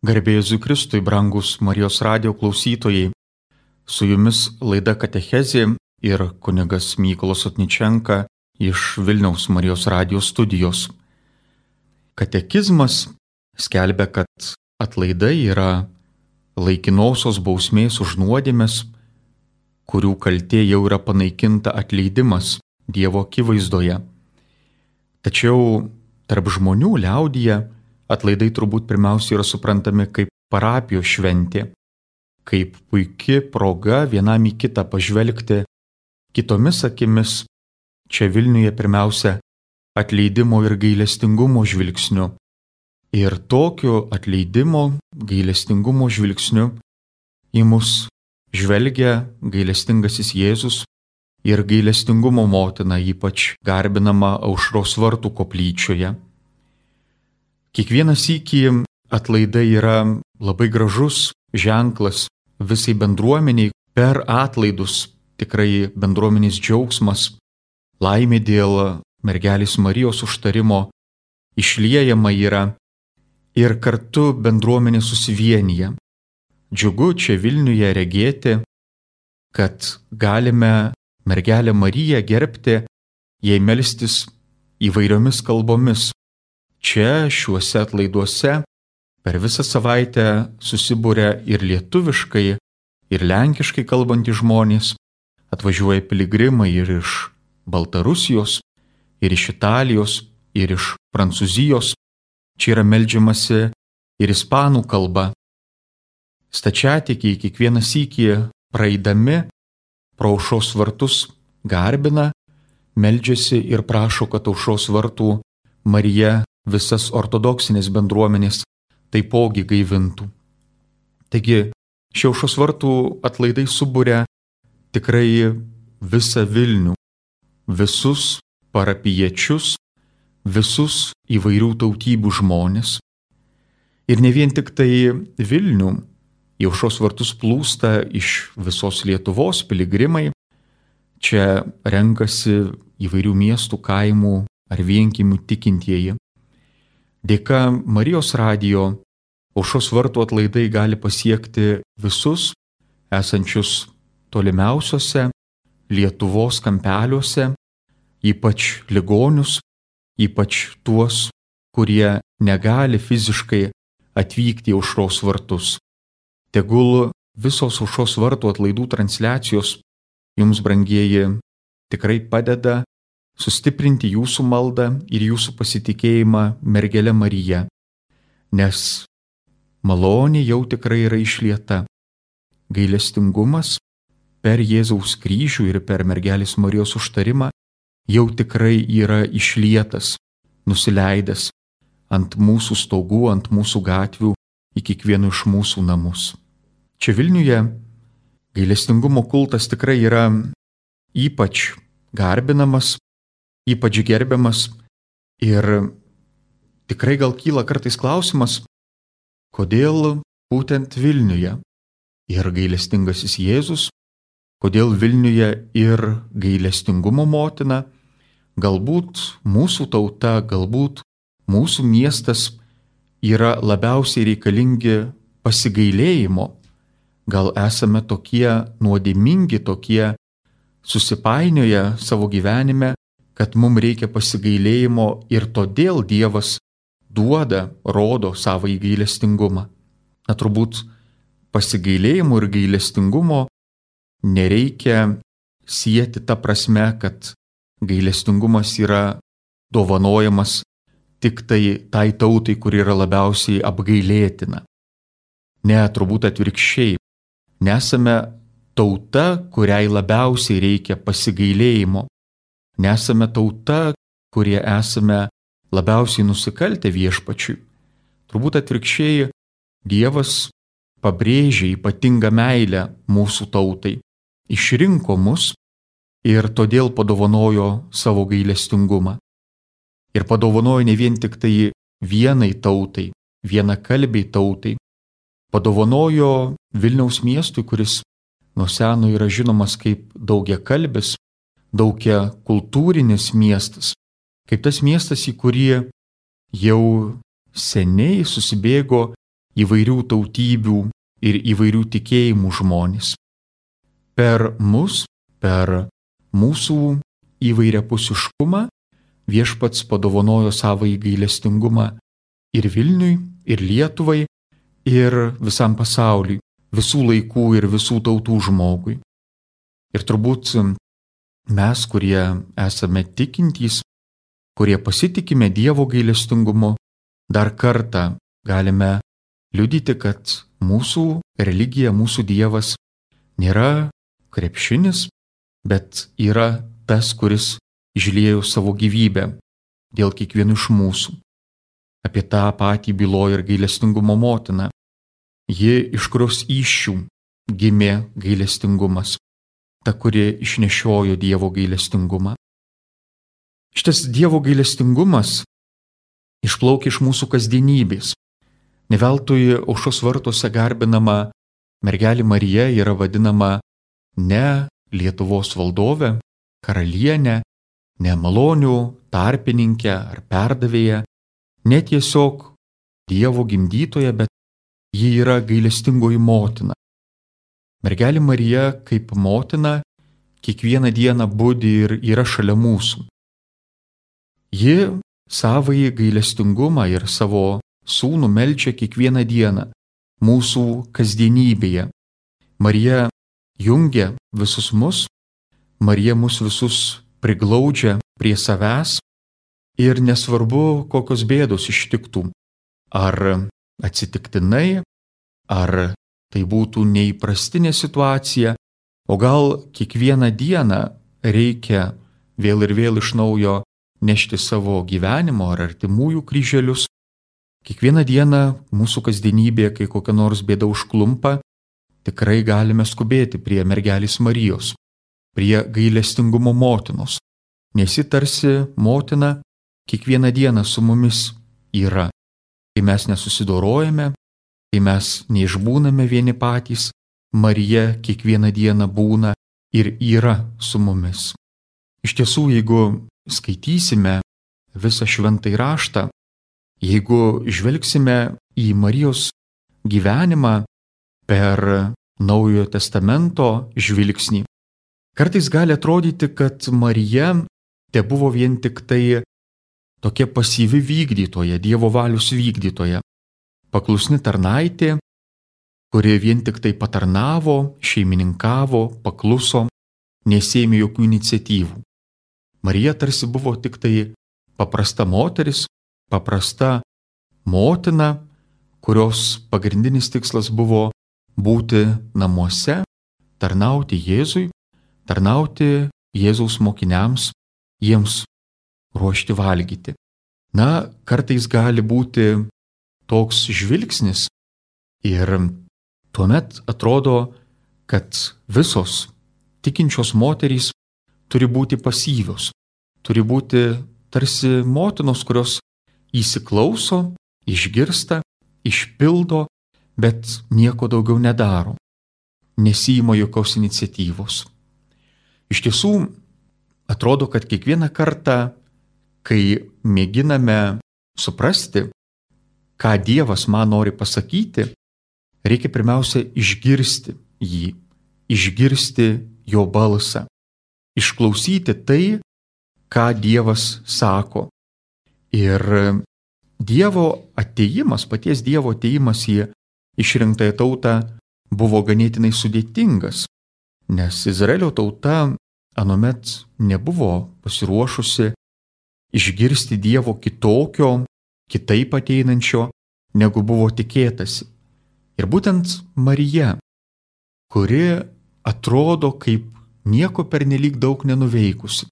Garbė Jėzui Kristui, brangus Marijos radijo klausytojai. Su jumis laida Katechezė ir kunigas Mykolas Otničenka iš Vilniaus Marijos radijo studijos. Katekizmas skelbia, kad atlaidai yra laikinosios bausmės už nuodėmes, kurių kaltė jau yra panaikinta atleidimas Dievo akivaizdoje. Tačiau tarp žmonių liaudyje atlaidai turbūt pirmiausia yra suprantami kaip parapijos šventė, kaip puiki proga vienam į kitą pažvelgti kitomis akimis, čia Vilniuje pirmiausia atleidimo ir gailestingumo žvilgsniu. Ir tokiu atleidimo, gailestingumo žvilgsniu į mus žvelgia gailestingasis Jėzus ir gailestingumo motina, ypač garbinama Aušros vartų koplyčioje. Kiekvieną sykį atlaidai yra labai gražus ženklas visai bendruomeniai. Per atlaidus tikrai bendruomenės džiaugsmas, laimė dėl mergelės Marijos užtarimo išliejama yra ir kartu bendruomenė susivienyje. Džiugu čia Vilniuje regėti, kad galime mergelę Mariją gerbti, jai melstis įvairiomis kalbomis. Čia šiuose atlaiduose per visą savaitę susibūrė ir lietuviškai, ir lenkiškai kalbantys žmonės, atvažiuoja piligrimai ir iš Baltarusijos, ir iš Italijos, ir iš Prancūzijos. Čia yra meldžiamasi ir ispanų kalba. Stačiatikiai kiekvieną sykį praeidami pro Aušros vartus garbina, meldžiasi ir prašo, kad Aušros vartų Marija visas ortodoksinės bendruomenės taipogi gaivintų. Taigi, šie Aušros vartų atlaidai suburia tikrai visą Vilnių, visus parapijiečius, visus įvairių tautybių žmonės. Ir ne vien tik tai Vilnių, į Aušros vartus plūsta iš visos Lietuvos piligrimai. Čia renkasi įvairių miestų, kaimų ar vienkiemių tikintieji. Dėka Marijos radijo Aušros vartų atlaidai gali pasiekti visus esančius tolimiausiuose Lietuvos kampeliuose, ypač ligonius, ypač tuos, kurie negali fiziškai atvykti į Aušros vartus. Tegul visos Aušros vartų atlaidų transliacijos jums, brangieji, tikrai padeda sustiprinti jūsų maldą ir jūsų pasitikėjimą mergele Marija, nes malonė jau tikrai yra išlieta. Gailestingumas per Jėzaus kryžių ir per mergelės Marijos užtarimą jau tikrai yra išlietas, nusileidęs ant mūsų stogų, ant mūsų gatvių, į kiekvienų iš mūsų namus. Čia Vilniuje gailestingumo kultas tikrai yra ypač garbinamas, ypač gerbiamas ir tikrai gal kyla kartais klausimas, kodėl būtent Vilniuje ir gailestingasis Jėzus, kodėl Vilniuje ir gailestingumo motina, galbūt mūsų tauta, galbūt mūsų miestas yra labiausiai reikalingi pasigailėjimo, gal esame tokie nuodėmingi, tokie susipainioję savo gyvenime, kad mums reikia pasigailėjimo ir todėl Dievas duoda, rodo savąjį gailestingumą. Turbūt pasigailėjimo ir gailestingumo nereikia sieti ta prasme, kad gailestingumas yra dovanojamas tik tai tautai, kuri yra labiausiai apgailėtina. Ne, turbūt atvirkščiai. Nesame tauta, kuriai labiausiai reikia pasigailėjimo. Nesame tauta, kurie esame labiausiai nusikaltę viešpačiui. Turbūt atvirkščiai, Dievas pabrėžė ypatingą meilę mūsų tautai, išrinko mus ir todėl padovanojo savo gailestingumą. Ir padovanojo ne vien tik tai vienai tautai, vienakalbiai tautai, padovanojo Vilniaus miestui, kuris nuo seno yra žinomas kaip daugiakalbis, daugiakultūrinis miestas, kaip tas miestas, į kurį jau seniai susibėgo įvairių tautybių ir įvairių tikėjimų žmonės. Per mus, per mūsų įvairiapusiškumą Viešpats padovanojo savąjį gailestingumą ir Vilniui, ir Lietuvai, ir visam pasauliui, visų laikų ir visų tautų žmogui. Ir turbūt mes, kurie esame tikintys, kurie pasitikime Dievo gailestingumu, dar kartą galime liudyti, kad mūsų religija, mūsų Dievas nėra krepšinis, bet yra tas, kuris išliejo savo gyvybę dėl kiekvieno iš mūsų. Apie tą patį byloja ir gailestingumo motina. Ji, iš kurios įsčių gimė gailestingumas, ta, kuri išnešiojo Dievo gailestingumą. Šitas Dievo gailestingumas išplaukia iš mūsų kasdienybės. Ne veltui Aušros vartuose garbinama mergelė Marija yra vadinama ne Lietuvos valdove, karalienė, ne malonių tarpininkė ar perdavėja, ne tiesiog Dievo gimdytoja, bet ji yra gailestingoji motina. Mergelė Marija kaip motina kiekvieną dieną budi ir yra šalia mūsų. Ji savąjį gailestingumą ir savo sūnų meldžia kiekvieną dieną mūsų kasdienybėje. Marija jungia visus mus, Marija mus visus priglaudžia prie savęs ir nesvarbu, kokios bėdos ištiktų. Ar atsitiktinai, ar tai būtų neįprastinė situacija, o gal kiekvieną dieną reikia vėl ir vėl iš naujo nešti savo gyvenimo ar artimųjų kryželius. Kiekvieną dieną mūsų kasdienybėje, kai kokia nors bėda užklumpa, tikrai galime skubėti prie mergelės Marijos, prie gailestingumo motinos, nes ji tarsi motina kiekvieną dieną su mumis yra. Kai mes nesusidorojame, kai mes neišbūname vieni patys, Marija kiekvieną dieną būna ir yra su mumis. Iš tiesų, jeigu skaitysime visą šventąjį raštą, jeigu žvelgsime į Marijos gyvenimą per Naujojo testamento žvilgsnį, kartais gali atrodyti, kad Marija tebuvo vien tik tai tokia pasyvi vykdytoja, Dievo valios vykdytoja, paklusni tarnaitė, kuri vien tik tai patarnavo, šeimininkavo, pakluso, nesėmė jokių iniciatyvų. Marija tarsi buvo tik tai paprasta moteris, paprasta motina, kurios pagrindinis tikslas buvo būti namuose, tarnauti Jėzui, tarnauti Jėzaus mokiniams, jiems ruošti valgyti. Na, kartais gali būti toks žvilgsnis ir tuomet atrodo, kad visos tikinčios moterys turi būti pasyvios, turi būti tarsi motinos, kurios įsiklauso, išgirsta, išpildo, bet nieko daugiau nedaro, nesiima jokios iniciatyvos. Iš tiesų, atrodo, kad kiekvieną kartą, kai mėginame suprasti, ką Dievas man nori pasakyti, reikia pirmiausia išgirsti jį, išgirsti jo balsą, išklausyti tai, ką Dievas sako. Ir Dievo atėjimas, paties Dievo atėjimas į išrinktąją tautą buvo ganėtinai sudėtingas, nes Izraelio tauta anuomet nebuvo pasiruošusi išgirsti Dievo kitokio, kitaip ateinančio, negu buvo tikėtasi. Ir būtent Marija, kuri atrodo kaip nieko pernelyg daug nenuveikusi,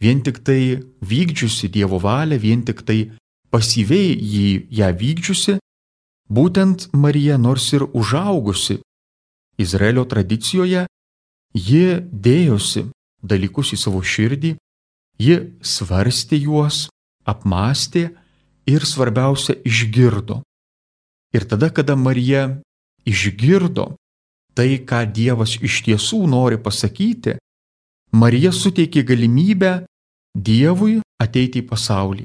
vien tik tai vykdžiusi Dievo valią, vien tik tai pasyviai ją vykdžiusi, būtent Marija, nors ir užaugusi Izraelio tradicijoje, ji dėjosi dalykus į savo širdį, ji svarstė juos, apmąstė ir svarbiausia išgirdo. Ir tada, kada Marija išgirdo tai, ką Dievas iš tiesų nori pasakyti, Marija suteikė galimybę Dievui ateiti į pasaulį.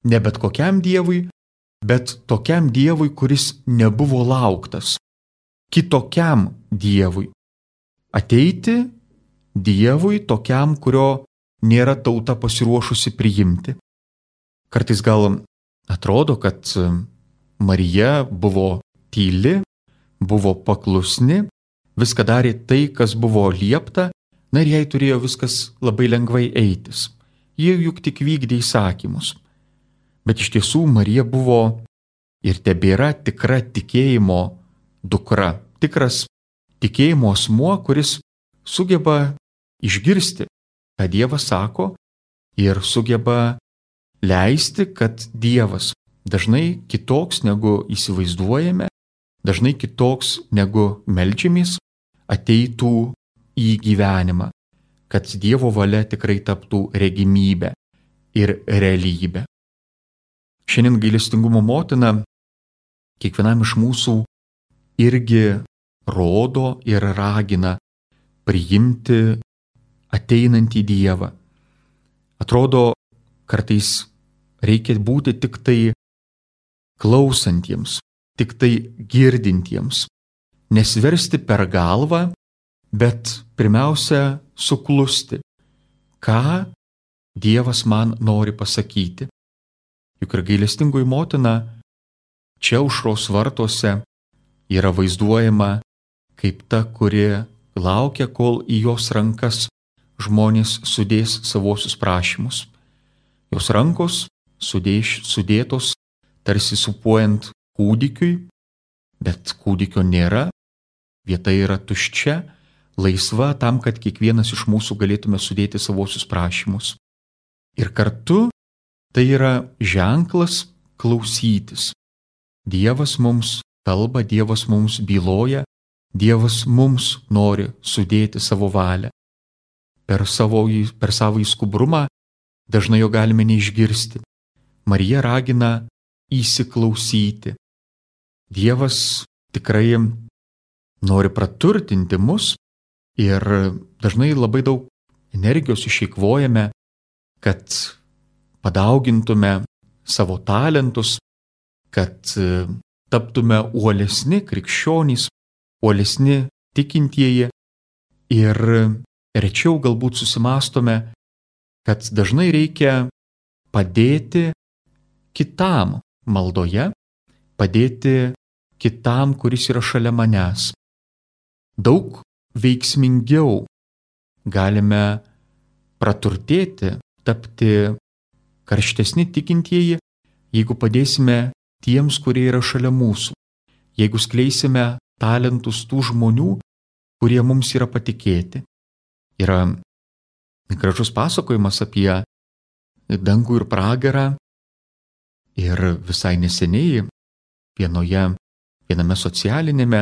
Ne bet kokiam Dievui, bet tokiam Dievui, kuris nebuvo lauktas, kitokiam Dievui. Ateiti Dievui tokiam, kurio nėra tauta pasiruošusi priimti. Kartais gal atrodo, kad Marija buvo tyli, buvo paklusni, viską darė tai, kas buvo liepta, na ir jai turėjo viskas labai lengvai eitis. Jie juk tik vykdė įsakymus. Bet iš tiesų Marija buvo ir tebėra tikra tikėjimo dukra, tikras tikėjimo asmuo, kuris sugeba išgirsti, ką Dievas sako, ir sugeba leisti, kad Dievas dažnai kitoks negu įsivaizduojame, dažnai kitoks negu meldžiamės, ateitų į gyvenimą, kad Dievo valia tikrai taptų regimybė ir realybė. Šiandien gailestingumo motina kiekvienam iš mūsų irgi rodo ir ragina priimti ateinantį Dievą. Atrodo, kartais reikia būti tik tai klausantiems, tik tai girdintiems, nesversti per galvą, bet pirmiausia suklusti, ką Dievas man nori pasakyti. Juk ir gailestingoji motina čia aušros vartuose yra vaizduojama kaip ta, kuri laukia, kol į jos rankas žmonės sudės savosius prašymus. Jos rankos sudėtos tarsi supuojant kūdikiui, bet kūdikio nėra, vieta yra tuščia, laisva tam, kad kiekvienas iš mūsų galėtume sudėti savosius prašymus. Ir kartu tai yra ženklas klausytis. Dievas mums kalba, Dievas mums byloja, Dievas mums nori sudėti savo valią. Per savo skubrumą dažnai jo galime neišgirsti. Marija ragina įsiklausyti. Dievas tikrai nori praturtinti mus ir dažnai labai daug energijos išeikvojame, kad padaugintume savo talentus, kad taptume uolesni krikščionys, uolesni tikintieji ir rečiau galbūt susimąstome, kad dažnai reikia padėti kitam maldoje, padėti kitam, kuris yra šalia manęs. Daug veiksmingiau galime praturtėti, tapti karštesni tikintieji, jeigu padėsime tiems, kurie yra šalia mūsų, jeigu skleisime talentus tų žmonių, kurie mums yra patikėti. Yra gražus pasakojimas apie dangų ir pragarą ir visai neseniai viename socialinėme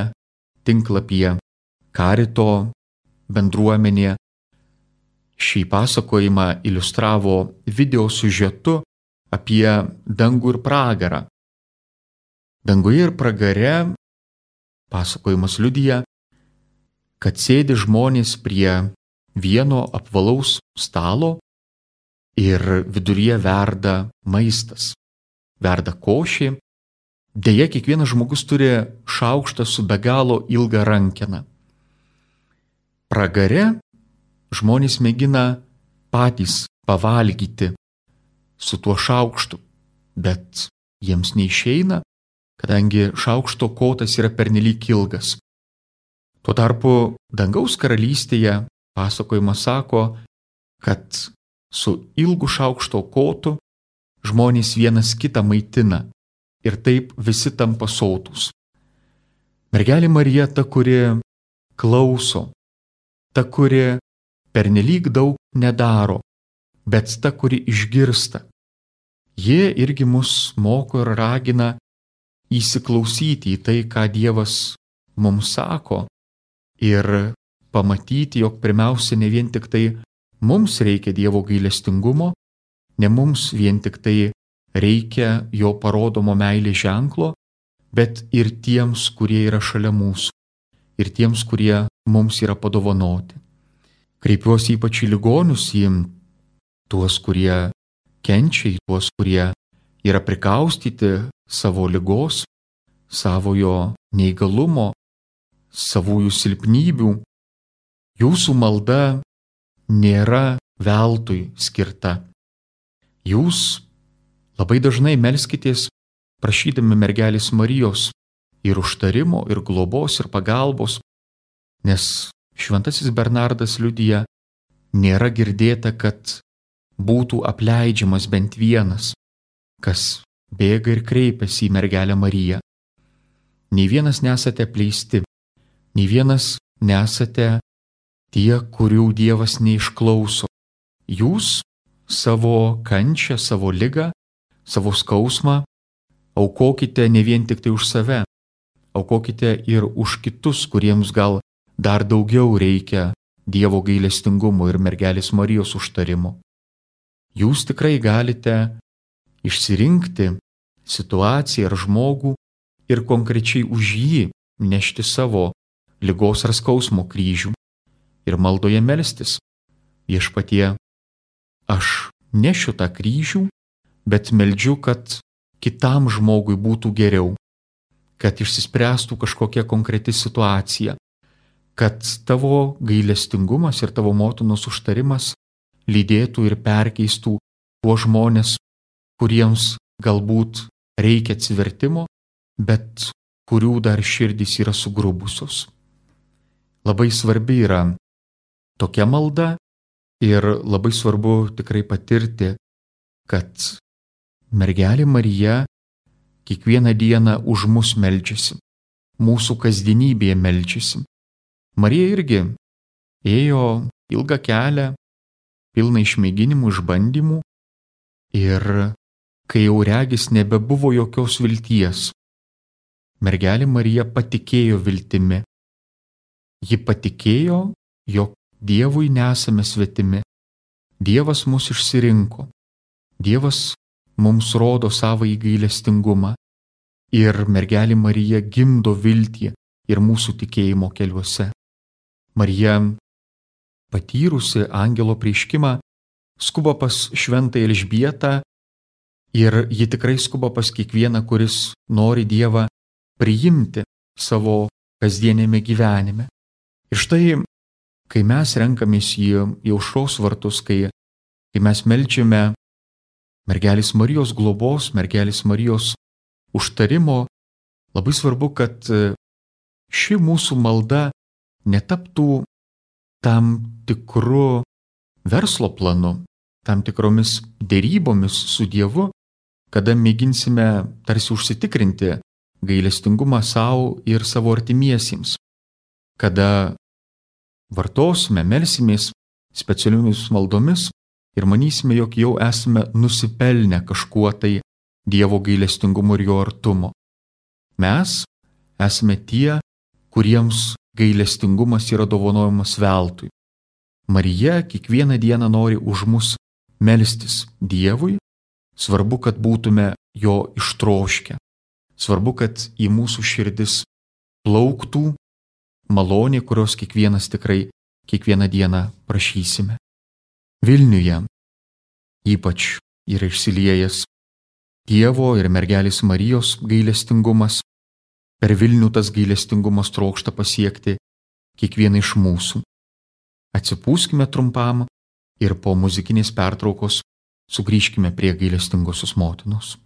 tinklapyje Karito bendruomenė šį pasakojimą iliustravo video siužetu apie dangų ir pragarą. Danguje ir pragare pasakojimas liudija, kad sėdi žmonės prie vieno apvalaus stalo ir viduryje verda maistas, verda košė. Deja, kiekvienas žmogus turi šaukštą su be galo ilga rankena. Pragare žmonės mėgina patys pavalgyti su tuo šaukštu, bet jiems neišeina, kadangi šaukšto kotas yra pernelyg ilgas. Tuo tarpu dangaus karalystėje pasakojimas sako, kad su ilgu šaukšto kotu žmonės vienas kitą maitina ir taip visi tampa sotūs. Mergelė Marija ta, kuri klauso, ta, kuri pernelyg daug nedaro, bet ta, kuri išgirsta. Jie irgi mus moko ir ragina įsiklausyti į tai, ką Dievas mums sako ir pamatyti, jog pirmiausia ne vien tik tai mums reikia Dievo gailestingumo, ne mums vien tik tai reikia jo parodomo meilės ženklo, bet ir tiems, kurie yra šalia mūsų, ir tiems, kurie mums yra padovanoti. Kreipiuosi ypač į ligonius, į tuos, kurie kenčia, į tuos, kurie yra prikaustyti savo ligos, savojo neįgalumo, savųjų silpnybių, jūsų malda nėra veltui skirta. Jūs labai dažnai melskitės prašydami mergelės Marijos ir užtarimo, ir globos, ir pagalbos, nes šventasis Bernardas liudija, nėra girdėta, kad būtų apleidžiamas bent vienas, kas bėga ir kreipiasi į mergelę Mariją. Nei vienas nesate apleisti, nei vienas nesate tie, kurių Dievas neišklauso. Jūs savo kančią, savo ligą, savo skausmą aukokite ne vien tik tai už save, aukokite ir už kitus, kuriems gal dar daugiau reikia Dievo gailestingumo ir mergelės Marijos užtarimo. Jūs tikrai galite išsirinkti situaciją ar žmogų ir konkrečiai už jį nešti savo ligos ar skausmo kryžių ir maldoje melstis. Viešpatie, aš nešiu tą kryžių, bet meldžiu, kad kitam žmogui būtų geriau, kad išsispręstų kažkokia konkreti situacija, kad tavo gailestingumas ir tavo motinos užtarimas lydėtų ir perkeistų tuos žmonės, kuriems galbūt reikia atsivertimo, bet kurių dar širdys yra sugrubusios. Labai svarbi yra tokia malda ir labai svarbu tikrai patirti, kad mergelė Marija kiekvieną dieną už mus meldžiasi, mūsų kasdienybėje meldžiasi. Marija irgi ėjo ilgą kelią, pilną išmėginimų, išbandymų ir kai jau regis nebebuvo jokios vilties, mergelė Marija patikėjo viltimi. Ji patikėjo, jog Dievui nesame svetimi. Dievas mus išsirinko. Dievas mums rodo savąjį gailestingumą. Ir mergelė Marija gimdo viltį ir mūsų tikėjimo keliuose. Marija, patyrusi angelo apreiškimą, skuba pas šventąją Elžbietą ir ji tikrai skuba pas kiekvieną, kuris nori Dievą priimti savo kasdienėme gyvenime. Ir štai, kai mes renkamės į aušros vartus, kai mes meldžiame mergelės Marijos globos, mergelės Marijos užtarimo, labai svarbu, kad ši mūsų malda netaptų tam tikru verslo planu, tam tikromis dėrybomis su Dievu, kada mėginsime tarsi užsitikrinti gailestingumą savo ir savo artimiesiems, kada vartosime, melsimės specialiomis maldomis ir manysime, jog jau esame nusipelnę kažkuo tai Dievo gailestingumo ir jo artumo. Mes esame tie, kuriems gailestingumas yra dovanojamas veltui. Marija kiekvieną dieną nori už mus melstis Dievui, svarbu, kad būtume jo ištroškę. Svarbu, kad į mūsų širdis plauktų malonė, kurios kiekvienas tikrai kiekvieną dieną prašysime. Vilniuje ypač yra išsiliejęs Dievo ir mergelės Marijos gailestingumas. Per Vilnių tas gailestingumas trokšta pasiekti kiekvieną iš mūsų. Atsipūskime trumpam ir po muzikinės pertraukos sugrįžkime prie gailestingosios motinos.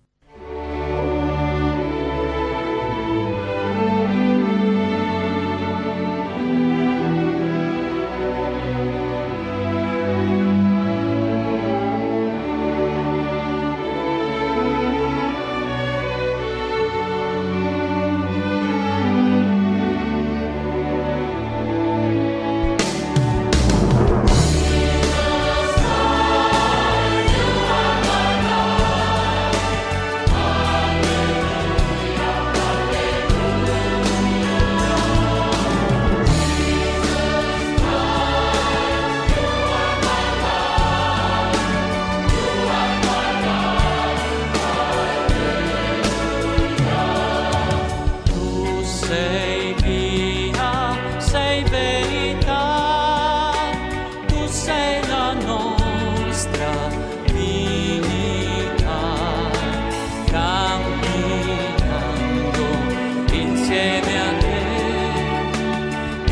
insieme a te,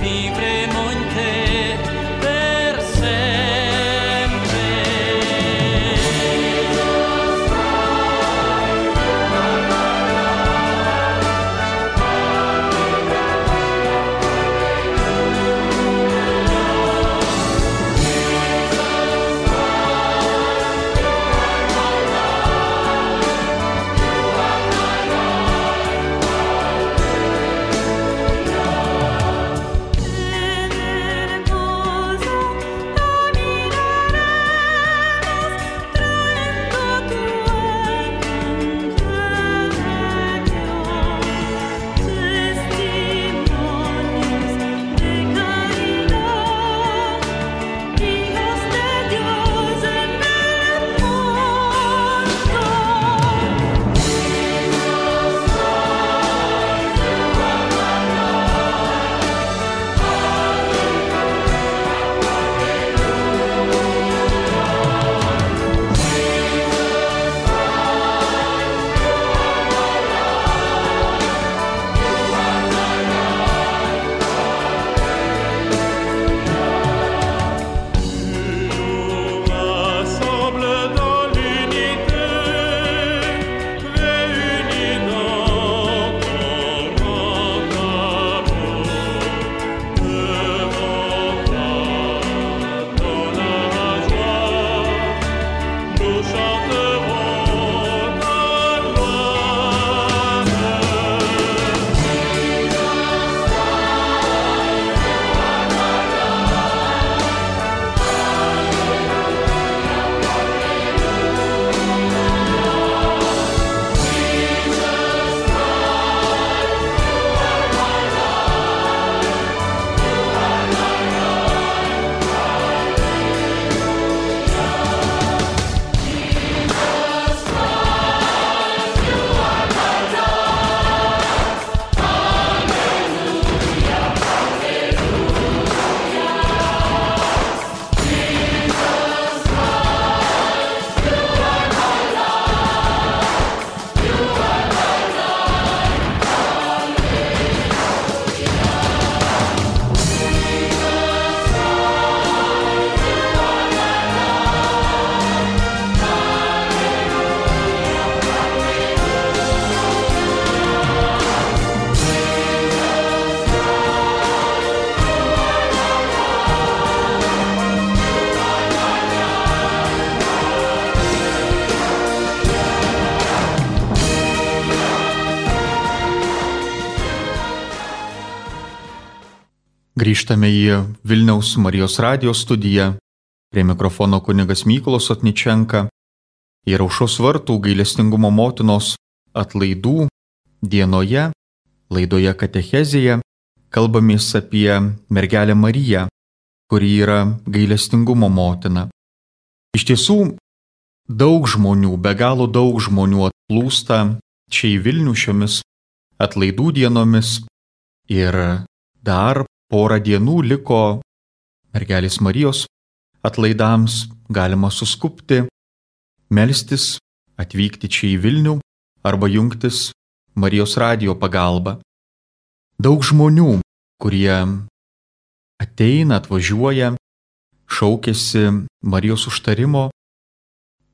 vivremo in te per sempre. Grįžtame į Vilniaus Marijos radijo studiją. Prie mikrofono kunigas Mykolas Otničenka. Ir Aušros vartų gailestingumo motinos atlaidų dienoje, laidoje Katechezėje, kalbamės apie mergelę Mariją, kuri yra gailestingumo motina. Iš tiesų, daug žmonių, be galo daug žmonių atplūsta čia į Vilnių šiomis atlaidų dienomis ir dar porą dienų liko mergelės Marijos atlaidams, galima suskubti, melstis, atvykti čia į Vilnių arba jungtis Marijos radijo pagalba. Daug žmonių, kurie ateina, atvažiuoja, šaukiasi Marijos užtarimo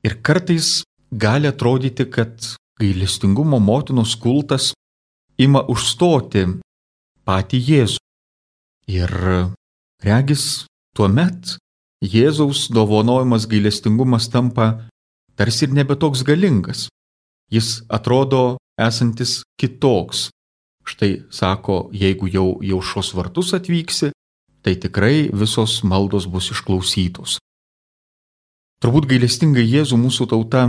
ir kartais gali atrodyti, kad gailestingumo motinos kultas ima užstoti patį Jėzų. Ir regis tuomet Jėzaus dovanojamas gailestingumas tampa tarsi ir nebe toks galingas. Jis atrodo esantis kitoks. Štai sako, jeigu jau į Aušros vartus atvyksi, tai tikrai visos maldos bus išklausytos. Turbūt gailestingai Jėzų mūsų tauta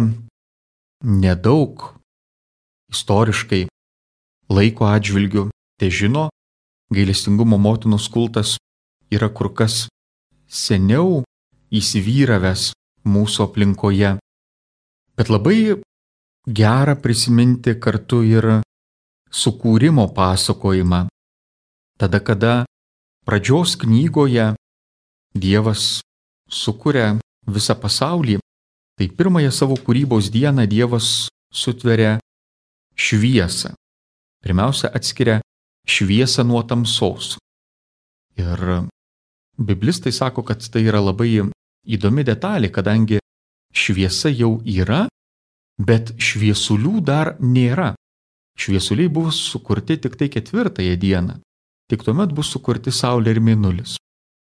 nedaug istoriškai laiko atžvilgiu težino. Gailestingumo motinos kultas yra kur kas seniau įsivyravęs mūsų aplinkoje. Bet labai gera prisiminti kartu ir sukūrimo pasakojimą. Tada, kada pradžios knygoje Dievas sukuria visą pasaulį, tai pirmąją savo kūrybos dieną Dievas sutveria šviesą. Pirmiausia, atskiria šviesą nuo tamsos. Ir biblistai sako, kad tai yra labai įdomi detalė, kadangi šviesa jau yra, bet šviesulių dar nėra. Šviesuliai buvo sukurti tik tai 4 dieną. Tik tuomet bus sukurti Saulė ir Mėnulis.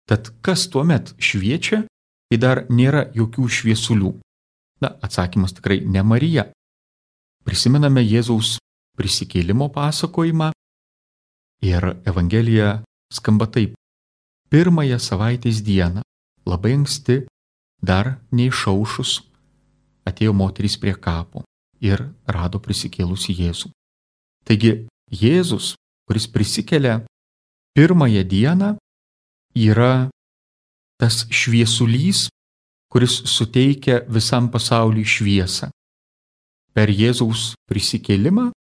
Tad kas tuomet šviečia, kai dar nėra jokių šviesulių? Atsakymas tikrai ne Marija. Prisimename Jėzaus prisikėlimo pasakojimą ir Evangelija skamba taip. 1 savaitės dieną, labai anksti, dar neišaušus, atėjo moterys prie kapo ir rado prisikėlusį Jėzų. Taigi Jėzus, kuris prisikelia 1 dieną, yra tas šviesulys, kuris suteikia visam pasauliui šviesą. Per Jėzaus prisikėlimą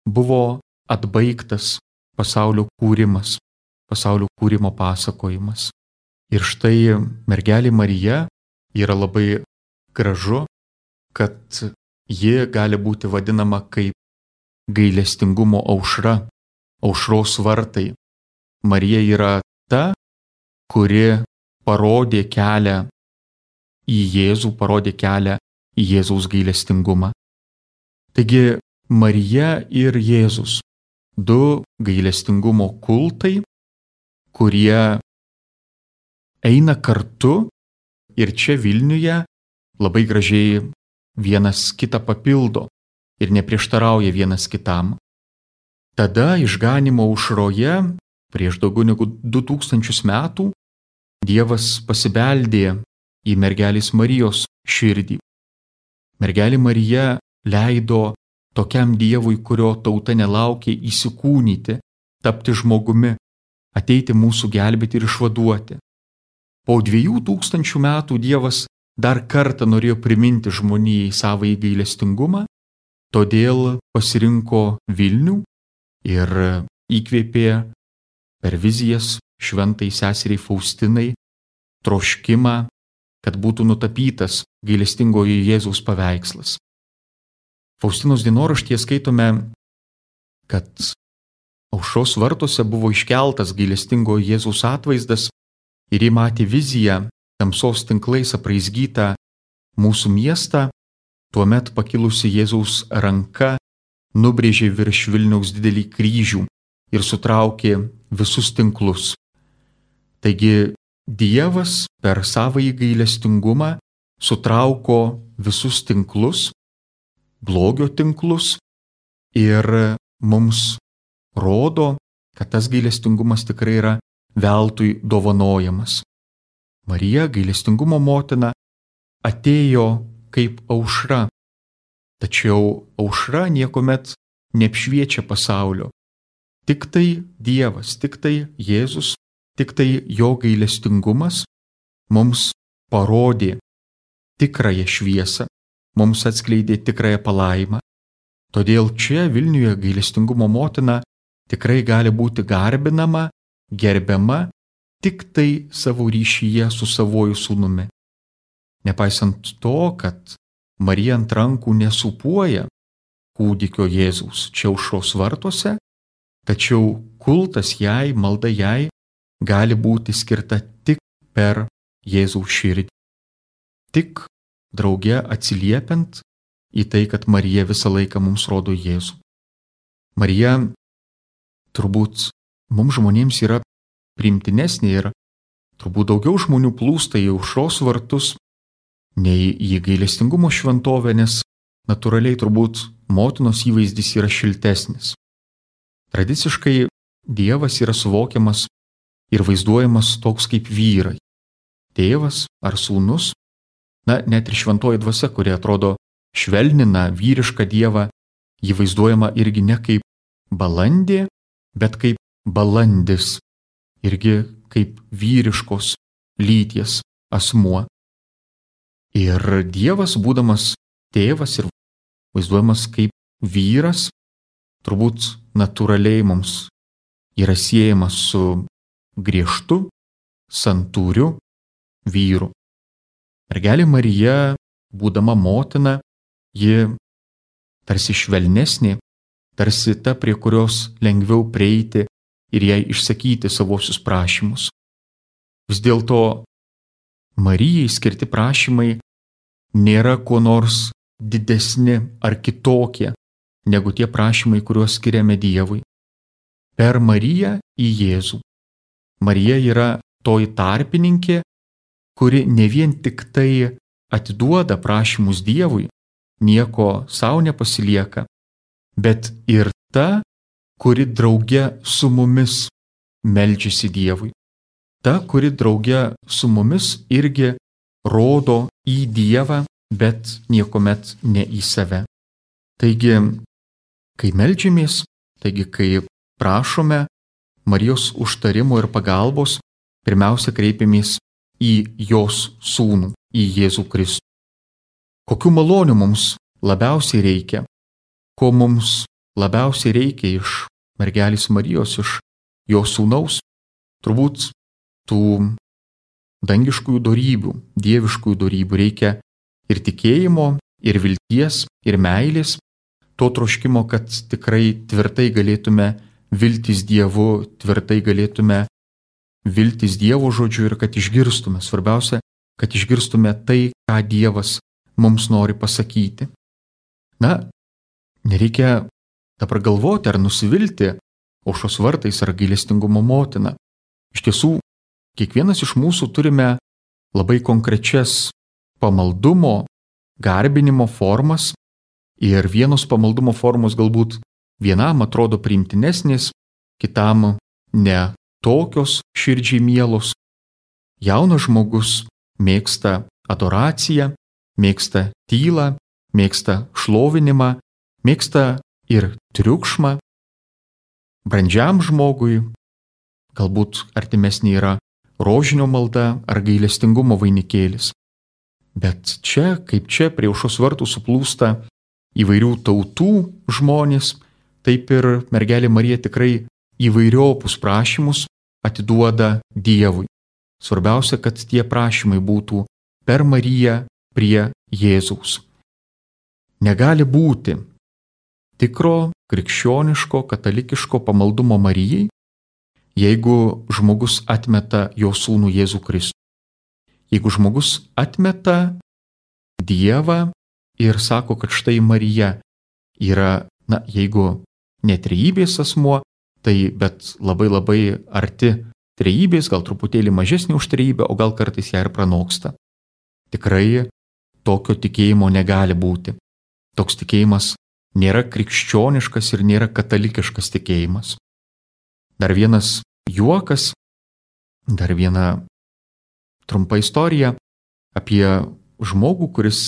buvo atbaigtas pasaulio kūrimas, pasaulio kūrimo pasakojimas. Ir štai mergelė Marija yra labai gražu, kad ji gali būti vadinama kaip gailestingumo aušra, aušros vartai. Marija yra ta, kuri parodė kelią į Jėzų, parodė kelią į Jėzaus gailestingumą. Taigi Marija ir Jėzus, 2 gailestingumo kultai, kurie eina kartu ir čia Vilniuje labai gražiai vienas kitą papildo ir neprieštarauja vienas kitam. Tada išganymo aušroje prieš daugiau negu 2000 metų Dievas pasibeldė į mergelės Marijos širdį. Mergelė Marija leido tokiam Dievui, kurio tauta nelaukė, įsikūnyti, tapti žmogumi, ateiti mūsų gelbėti ir išvaduoti. Po 2000 metų Dievas dar kartą norėjo priminti žmonijai savąjį gailestingumą, todėl pasirinko Vilnių ir įkvėpė per vizijas šventai seseriai Faustinai troškimą, kad būtų nutapytas gailestingojo Jėzaus paveikslas. Faustinos dienoraštyje skaitome, kad aušros vartuose buvo iškeltas gailestingojo Jėzaus atvaizdas ir ji matė viziją tamsos tinklais apraizgytą mūsų miestą, tuomet pakilusi Jėzaus ranka nubrėžė virš Vilniaus didelį kryžių ir sutraukė visus tinklus. Taigi Dievas per savąjį gailestingumą sutrauko visus tinklus, blogio tinklus ir mums rodo, kad tas gailestingumas tikrai yra veltui dovanojamas. Marija, gailestingumo motina, atėjo kaip aušra, tačiau aušra niekuomet neapšviečia pasaulio. Tik tai Dievas, tik tai Jėzus, tik tai jo gailestingumas mums parodė tikrąją šviesą, mums atskleidė tikrąją palaimą. Todėl čia Vilniuje gailestingumo motina tikrai gali būti garbinama, gerbiama tik tai savo ryšyje su savuoju sūnumi. Nepaisant to, kad Marija ant rankų nesūpuoja kūdikio Jėzaus čia aušros vartuose, tačiau kultas jai, malda jai gali būti skirta tik per Jėzaus širdį. Tik drauge atsiliepiant į tai, kad Marija visą laiką mums rodo Jėzų. Marija turbūt mums žmonėms yra priimtinesnė ir turbūt daugiau žmonių plūsta į aušros vartus nei į gailestingumo šventovę, nes natūraliai turbūt motinos įvaizdis yra šiltesnis. Tradiciškai Dievas yra suvokiamas ir vaizduojamas toks kaip vyrai. Tėvas ar sūnus, net ir šventoji dvasia, kuri atrodo švelnina vyrišką Dievą, jį vaizduojama irgi ne kaip balandė, bet kaip balandis, irgi kaip vyriškos lyties asmuo. Ir Dievas, būdamas tėvas ir vaizduojamas kaip vyras, turbūt natūraliai mums yra siejamas su griežtu, santūriu vyru. Mergelė Marija, būdama motina, ji tarsi švelnesnė, tarsi ta, prie kurios lengviau prieiti ir jai išsakyti savosius prašymus. Vis dėlto Marijai skirti prašymai nėra kuo nors didesni ar kitokie negu tie prašymai, kuriuos skiriame Dievui. Per Mariją į Jėzų. Marija yra toji tarpininkė, kuri ne vien tik tai atiduoda prašymus Dievui, nieko savo nepasilieka, bet ir ta, kuri drauge su mumis meldžiasi Dievui. Ta, kuri drauge su mumis irgi rodo į Dievą, bet niekuomet ne į save. Taigi, kai meldžiamės, kai prašome Marijos užtarimo ir pagalbos, pirmiausia kreipiamės į jos sūnų, į Jėzų Kristų. Kokių malonių mums labiausiai reikia? Ko mums labiausiai reikia iš mergelės Marijos, iš jos sūnaus? Turbūt tų dangiškųjų dorybių, dieviškųjų dorybių reikia ir tikėjimo, ir vilties, ir meilės, to troškimo, kad tikrai tvirtai galėtume viltis Dievu, tvirtai galėtume viltis Dievo žodžiu ir kad išgirstume. Svarbiausia, kad išgirstume tai, ką Dievas mums nori pasakyti. Nereikia dabar galvoti ar nusivilti aušros vartais ar gailestingumo motina. Iš tiesų, kiekvienas iš mūsų turime labai konkrečias pamaldumo, garbinimo formas ir vienos pamaldumo formos galbūt vienam atrodo priimtinesnės, kitam ne tokios širdžiai mielos. Jaunas žmogus mėgsta adoraciją, mėgsta tylą, mėgsta šlovinimą, mėgsta ir triukšmą. Brandžiam žmogui galbūt artimesnė yra rožinio malda ar gailestingumo vainikėlis. Bet čia, kaip čia prie aušros vartų suplūsta įvairių tautų žmonės, taip ir mergelė Marija tikrai įvairiopus prašymus atiduoda Dievui. Svarbiausia, kad tie prašymai būtų per Mariją prie Jėzaus. Negali būti tikro, krikščioniško, katalikiško pamaldumo Marijai, jeigu žmogus atmeta jo sūnų Jėzų Kristų. Jeigu žmogus atmeta Dievą ir sako, kad štai Marija yra, jeigu ne trejybės asmuo, tai bet labai arti trejybės, gal truputėlį mažesnė už trejybę, o gal kartais ją ir pranoksta. Tikrai tokio tikėjimo negali būti. Toks tikėjimas nėra krikščioniškas ir nėra katalikiškas tikėjimas. Dar vienas juokas, dar viena trumpa istorija apie žmogų, kuris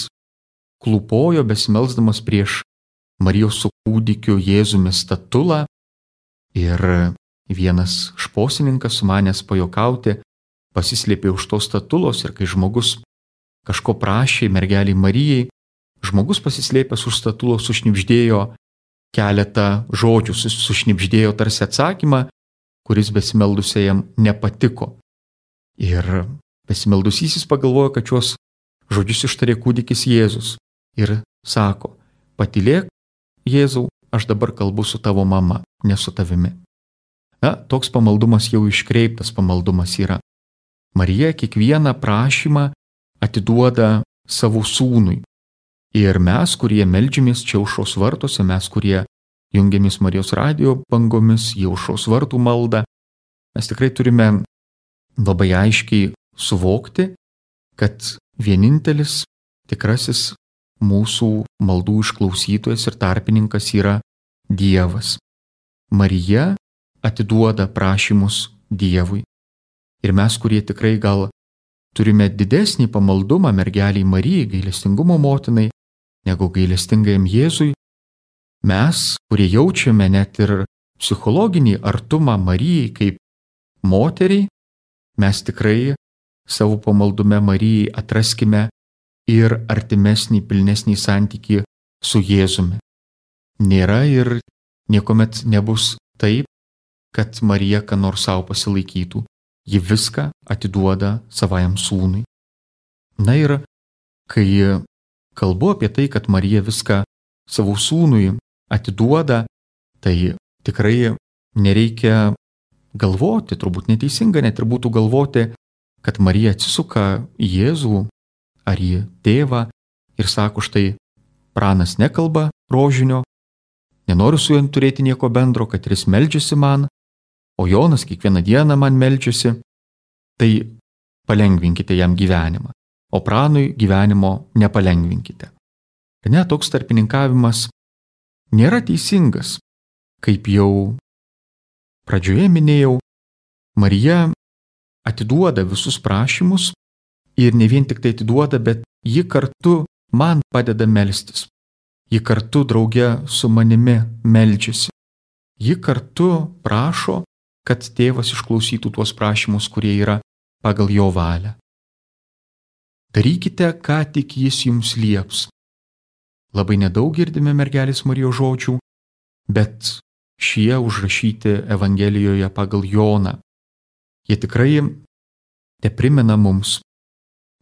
klūpojo besimelsdamas prieš Marijos su kūdikiu Jėzumi statulą ir vienas šposininkas sumanęs pajokauti pasislėpė už tos statulos ir kai žmogus kažko prašė mergelei Marijai, žmogus pasislėpęs už statulos sušnibždėjo keletą žodžių, sušnibždėjo tarsi atsakymą, kuris besimeldusiajam nepatiko. Ir besimeldusysis pagalvojo, kad šios žodžius ištarė kūdikis Jėzus ir sako: patylėk, Jėzau, aš dabar kalbu su tavo mama, ne su tavimi. Toks pamaldumas jau iškreiptas pamaldumas yra. Marija kiekvieną prašymą atiduoda savo sūnui. Ir mes, kurie meldžiamės čia aušros vartuose, mes, kurie jungiamės Marijos radijo bangomis į aušros vartų maldą, mes tikrai turime labai aiškiai suvokti, kad vienintelis tikrasis mūsų maldų išklausytojas ir tarpininkas yra Dievas. Marija atiduoda prašymus Dievui. Ir mes, kurie tikrai gal turime didesnį pamaldumą mergeliai Marijai, gailestingumo motinai, negu gailestingajam Jėzui, mes, kurie jaučiame net ir psichologinį artumą Marijai kaip moteriai, mes tikrai savo pamaldume Marijai atraskime ir artimesnį, pilnesnį santykį su Jėzumi. Nėra ir niekuomet nebus taip, kad Marija ką nors savo pasilaikytų. Ji viską atiduoda savajam sūnui. Ir kai kalbu apie tai, kad Marija viską savo sūnui atiduoda, Tai tikrai nereikia galvoti, turbūt neteisinga net ir būtų galvoti, kad Marija atsisuka į Jėzų ar į tėvą ir sako, štai pranas nekalba rožinio, nenoriu su juo turėti nieko bendro, kad jis meldžiasi man, o Jonas kiekvieną dieną man meldžiasi, tai palengvinkite jam gyvenimą, o pranui gyvenimo nepalengvinkite. Ir net toks tarpininkavimas nėra teisingas. Kaip jau pradžioje minėjau, Marija atiduoda visus prašymus ir ne vien tik tai atiduoda, bet ji kartu man padeda melstis. Ji kartu drauge su manimi meldžiasi. Ji kartu prašo, kad tėvas išklausytų tuos prašymus, kurie yra pagal jo valią. Darykite, ką tik jis jums lieps. Labai nedaug girdime mergelės Marijos žodžių, bet šie užrašyti Evangelijoje pagal Joną. Jie tikrai teprimena mums,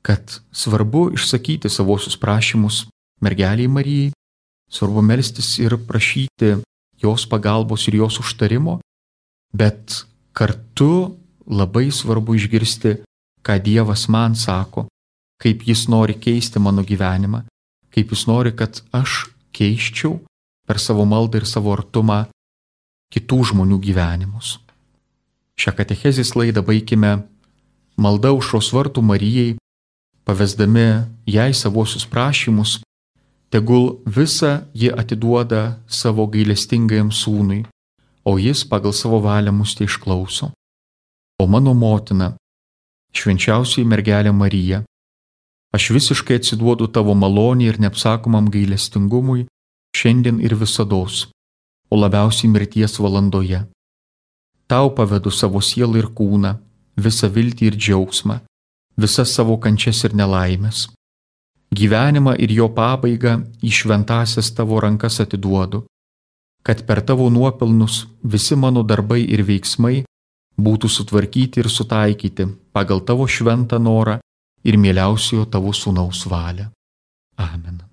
kad svarbu išsakyti savosius prašymus mergeliai Marijai, svarbu melstis ir prašyti jos pagalbos ir jos užtarimo, bet kartu labai svarbu išgirsti, ką Dievas man sako, kaip jis nori keisti mano gyvenimą, kaip jis nori, kad aš keisčiau per savo maldą ir savo artumą kitų žmonių gyvenimus. Šią katechezės laidą baikime malda aušros vartų Marijai, pavesdami jai savosius prašymus, tegul visą ji atiduoda savo gailestingajam sūnui, o jis pagal savo valią mus tai išklauso. O mano motina, švenčiausioji mergelė Marija, aš visiškai atsiduodu tavo malonį ir neapsakomam gailestingumui šiandien ir visados, o labiausiai mirties valandoje. Tau pavedu savo sielą ir kūną, visą viltį ir džiaugsmą, visas savo kančias ir nelaimės. Gyvenimą ir jo pabaigą į šventąsias tavo rankas atiduodu, kad per tavo nuopelnus visi mano darbai ir veiksmai būtų sutvarkyti ir sutaikyti pagal tavo šventą norą ir mieliausiojo tavo sūnaus valią. Amen.